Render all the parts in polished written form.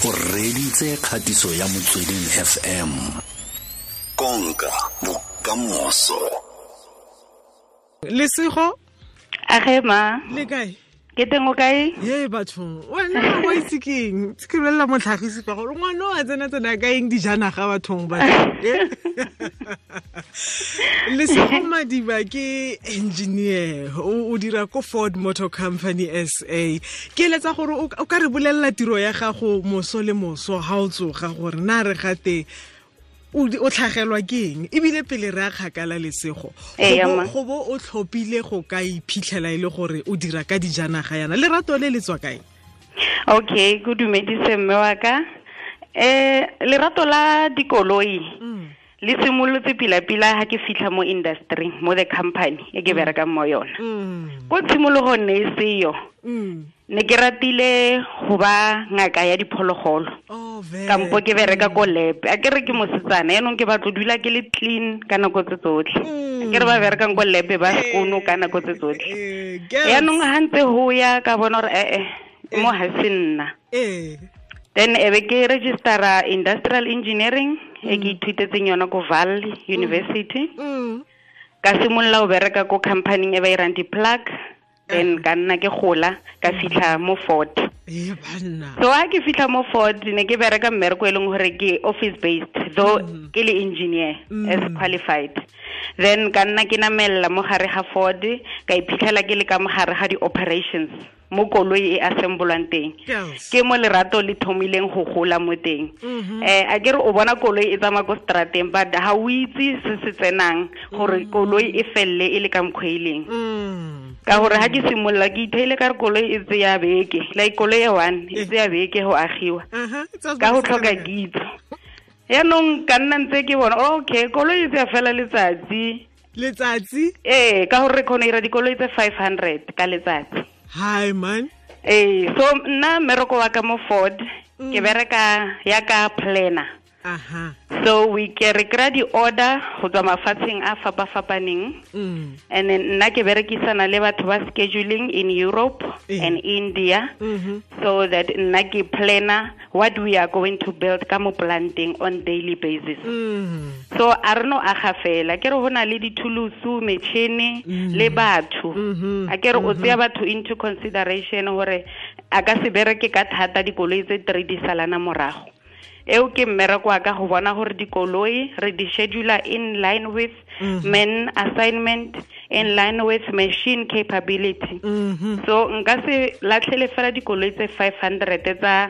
O reditse kgatiso ya Motsweding FM. Konka bokamoso. Lesego. Age ma. Le kae? Ke teng, o kae? Ye bathong, wena wa itse keng? Ke bolelela motlhagisi ka gore ngwana o a tsena-tsena ka eng dijanaga bathong ba. Lesego Madiba ke engineer, o dira ko Ford Motor Company SA. Ke eletsa gore o ka re bolelela tiro ya gago moso le moso ha o tsoga, gore na re gate o tlhagelwa ke eng, ebile pele re a kgakala, Lesego, go bo o tlhophile go ka iphitlhela e le gore o dira ka dijanaga yana, lerato le le tswa kae? Okay, go dumedise mme wa ka. Lerato la dikoloi le simolotse pila-pila ha ke fitlha mo industry, mo the company e ke berekang mo yona. Ko tshimologong ne e seyo. Ne ke ratile go ba ngaka ya diphologolo. Kampo ke bereka ko lab. A ke re ke mosetsana, yaanong ke batlo dula ke le clean ka nako tse tsotlhe. A ke re ba berekang ko lab ba sekono ka nako tse tsotlhe. Yaanong ha ntse ho ya ka bona gore mo ha se nna. Then ebe ke registera industrial engineering e ke ithutetseng yona ko Vaal University. Ka simolola go bereka ko company e ba irang di-plug. Then ka nna ke gola ka fitlha mo Ford. So ha ke fitlha mo Ford, ne ke bereka mmereko e leng gore ke office based, though ke le engineer as qualified. Then ka nna ke namella mo gare ga Ford, ka iphitlhela ke le ka mo gare ga di-operations mo koloi e assemblwang teng. Ke mo lerato le thomileng go gola mo teng. A ke re o bona koloi e tsamaya ko strateng, but ha o itse se se tsenang gore koloi e felle e le ka mokgwa e leng. Ka gore ha ke simolola ke itheile ka re koloi e tseya beke, like koloi e one e tseya beke go agiwa ka go tlhoka kitso. Yaanong ka nna ntse ke bona, okay, koloi e tseya fela letsatsi. Letsatsi? Ee, ka gore re kgona ira dikoloi tse 500 ka letsatsi. Hi man. So nna mmereko wa ka mo Ford, ke bereka ya ka planner. So we ke re kry di-order go tswa mafatsheng a fapa-fapaneng. And then nna ke berekisana le batho ba scheduling in Europe and India, so that nna ke planner what we are going to build ka mo planting on daily basis. So a re no aga fela, ke re ho na le dithulusu, metšhini le batho. A ke re o tseya batho into consideration gore a ka se bereke ka thata dikoloi tse 3 di salana morago. Eo ke mmereko wa ka go bona gore dikoloi re di schedule in line with man assignment, in line with machine capability. So nka se latlhele fela dikoloi tse 500 tsa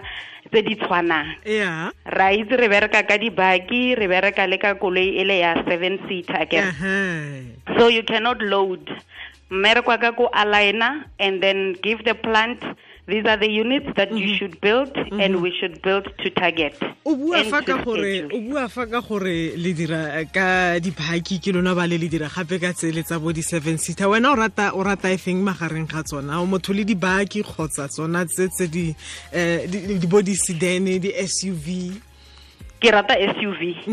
tse di tshwanang. Ra itse re bereka ka dibaki, re bereka le ka koloi e le ya 7 seater akere. So you cannot load. Mmereko wa ka ko aligner and then give the plant, these are the units that you should build, and we should build to target. O bua fa ka gore, o bua fa ka gore le dira ka diphaki ke lona ba le le dira gape ka tsele tsa bo di 7 seater. Wena o rata e feng magareng ga tsona? O motho le dibaki kgotsa tsona tse tse di di bo di sedan, di SUV? Ke rata SUV.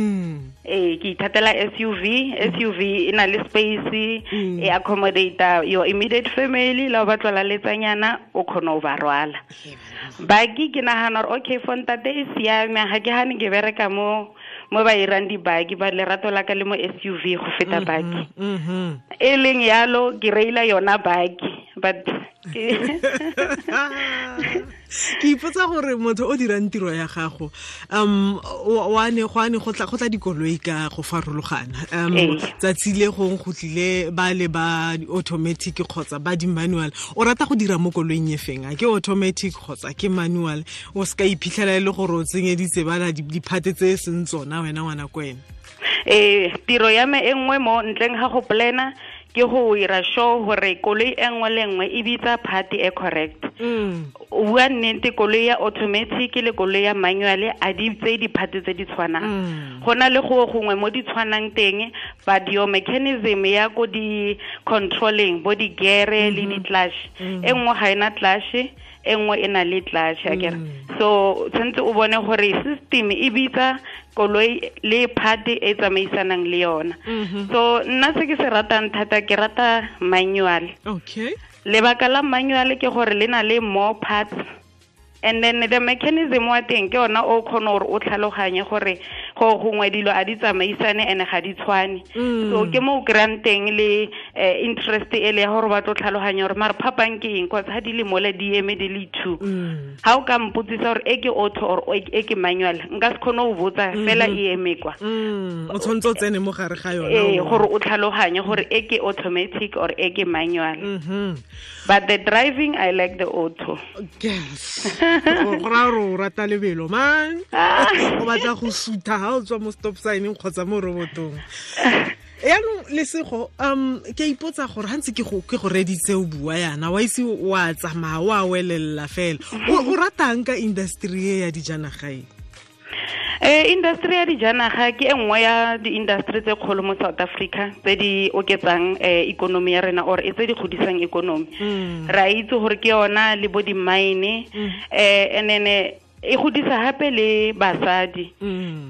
Ke ithatela SUV. SUV e na le space, e accommodate your immediate family, la ba tlola letsanyana o khona o ba rwala. Baki ke nahana gore okay, for ntate e siame, ha ke hane ke bereka mo ba irang dibaki, ba lerato la ka le mo SUV go feta baki. E leng yalo ke reila yona baki, but ke ipotsa gore motho o dirang tiro ya gago, wa ne go ane go tla dikoloi ka go farologana, tsatsi le gong go tlile ba le ba automatic kgotsa ba di manual, o rata go dira mo koloing e feng? A ke automatic kgotsa ke manual? O se ka iphitlhela e le gore o tsenyeditse bana diphate tse e seng tsona wena ngwana ko wena. Tiro ya me e nngwe mo ntleng ga go plana ke go ira sure gore koloi e nngwe le nngwe e bitsa part e correct. O bua nnete, koloi ya automatic le koloi ya manual a di tse di-part tse di tshwanang. Go na le go gongwe mo di tshwanang teng, but your mechanism ya ko di-controlling bo di-gear le di-clutch, e nngwe ga ena clutch, e nngwe e na le clutch akere. So tshwanetse o bone gore system e bitsa koloi le part e tsamaisanang le yona. So nna se ke se ratang thata, ke rata manual. Okay. Lebaka la manual ke gore le na le more parts. And then the mechanism wa teng ke ona o kgone gore o tlhaloganye gore go gongwe dilo a di tsamaisane ene ga di tshwane. So ke mo o kry-ang teng le interest e le ya gore ba tlo tlhaloganya gore mare phapang ke eng, cause ha di le mole di eme di le two. Ha o ka mpotsisa gore e ke auto or e ke manual, nka se kgone go botsa fela e eme kwa. O tshwanetse o tsene mo gare ga yona. Gore o tlhaloganye gore e ke automatic or e ke manual. But the driving, I like the auto. Yes. Go raya gore o rata lebelo man. O batla go sutha ha o tswa mo stop sign kgotsa mo robotong. Yaanong Lesego, ke a ipotsa gore ha ntse ke go reditse o bua yana, wa itse wa tsamaya wa welelela fela. O ratang ka industry e ya dijanaga e? Industry ya dijanaga ke e nngwe ya di-industry tse kgolo mo South Africa tse di oketsang economy ya rena or e tse di godisang economy. Re a itse gore ke yona le bo di-mine, and then e godisa gape le basadi.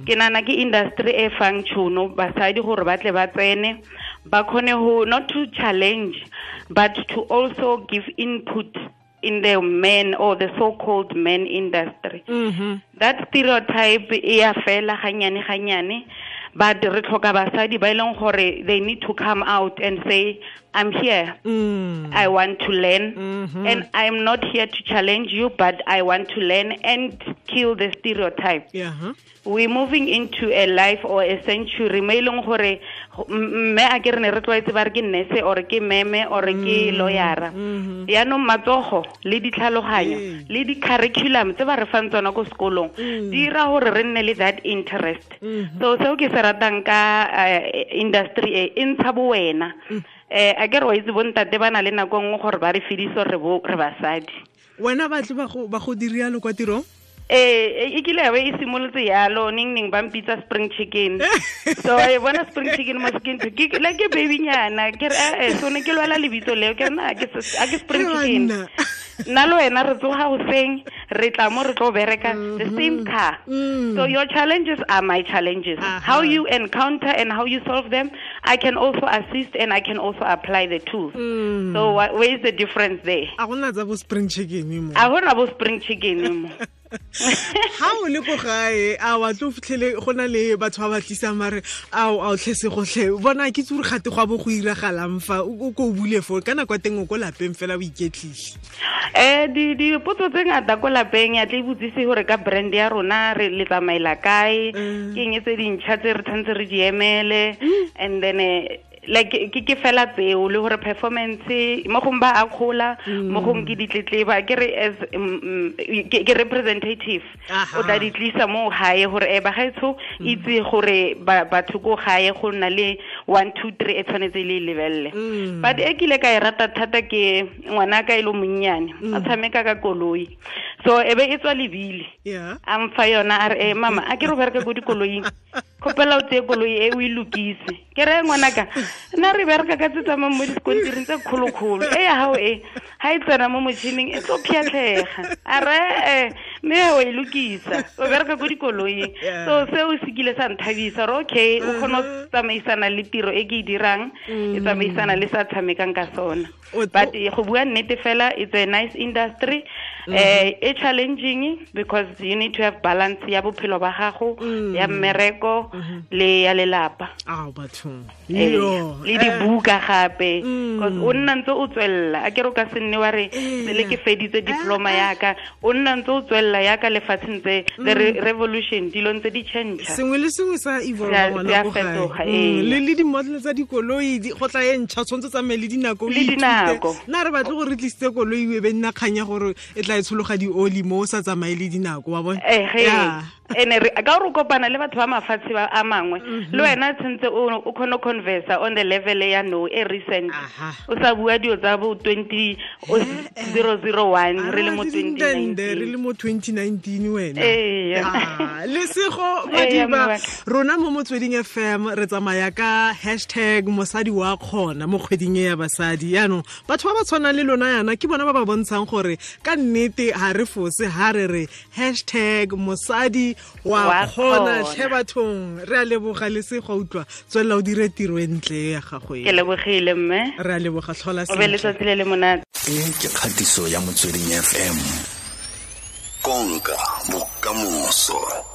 Ke nana ke industry e fang tšhono basadi gore ba tle ba tsene, ba kgone go not to challenge but to also give input in the men or the so-called men industry. That stereotype e ya fela ganyane ganyane, but re tlhoka basadi ba e leng gore they need to come out and say, I'm here, I want to learn, and I'm not here to challenge you, but I want to learn and kill the stereotype. We're moving into a life or a century mo e leng gore mme a ke re ne re tlwaetse ba re ke nurse or ke meme or ke lawyera. Yaanong matsogo le ditlhaloganyo le di-curriculum tse ba re fang tsona ko sekolong di dira gore re nne le that interest. So seo ke se ratang ka industry e e ntsha bo wena. A ke re wa itse bontate ba na le nako nngwe gore ba re fedise re basadi. Wena batle ba go dirialo kwa tirong? E kile ya be e simolotse yalo, neng neng ba mpitsa spring chicken. So e bona spring chicken mo skin ke le ke baby nyana, ke re so ne ke lwala lebitso leo, ke re na ke spring chicken. Nna le wena re tsoga hoseng, re tla mo re tlo bereka the same car. So your challenges are my challenges. How you encounter and how you solve them, I can also assist and I can also apply the tools. So where is the difference there? A gona tsa bo spring chicken mo. A gona bo spring chicken mo. Ha o le ko gae, a wa tlo fitlhele go na le batho ba ba tlisang mare ao a o tlhese gotlhe bona ke tsure gate go a bo go iragalang fa o ko bule fo ka nako teng o ko lapeng fela o iketlile. Dipotso tse ngata ko lapeng ya tle botsise gore ka brand ya rona re le tsamaela kae, ke eng tse dintšha tse re tshwanetse re di emele, and then like ke fela tseo le gore performance mo gong ba a kgola, mo gong ke ditletleba, ke re as ke representative o tla di tlisa mo gae gore ba gaetsho itse gore batho ko gae go nna le 1 2 3 e tshwanetse le lebelle. But e kile ka e rata thata ke ngwana ka e lo monnyane a tshameka ka koloi, so e be e tswa lebile a mfa yona a re mama a ke re bereka ko dikoloing, kgopela o tseye koloi e o e lokise. Ke re ngwanaka nna re bereka ka tse tsamayng mo dikontiring tse kgolokgolo, e ya gago e ga e tsena mo motšhining e tlo phiatlhega. A re mme o e lokisa, o bereka ko dikoloing. So seo se kile sa nthabisa gore okay o kgone go tsamaisana le tiro e ke e dirang, e tsamaisana le sa tshamekang ka sona. But go bua nnete fela, it's a nice industry. E challenging because you need to have balance ya bophelo ba gago, ya mmereko le ya lelapa. Bathong. Le dibuka gape, because o nna ntse o tswella, a ke re o ka se nne wa re sele ke feditse diploma yaka, o nna ntse o tswella yaka lefatsheng tse the revolution dilo ntse di change. Sengwe le sengwe sa evolve ngwana ko gae. Le di-model tsa dikoloi go tla e ntšha, tshwanetse tsamaye le dinako. Le dinako. Nna re batle gore re tlisitse koloi e be nna kganya gore e tla e tshologa di-oli mo o sa tsamaye le dinako, wa bona? Ene re ka gore o kopana le batho ba mafatshe a mangwe, le wena tshwanetse o kgone go converse on the level ya no e recent. O sa bua dio tsa bo 2001 re le mo 2019, re le mo 2019 wena. Lesego Madiba, rona mo Motsweding FM re tsamaya ka hashtag mosadi wa kgona mo kgweding e ya basadi. Yaanong batho ba ba tshwanang le lona yana ke bona ba ba bontshang gore ka nnete ha re fose ha re re hashtag mosadi wa kgona. Tlhe bathong, re a leboga Lesego, utlwa tswelela o dire tiro e ntle ya gago e. Ke lebogile mme. Re a leboga, tlhola sentle. O be letsatsi le le monate. E ke kgatiso ya Motsweding FM. Konka bokamoso.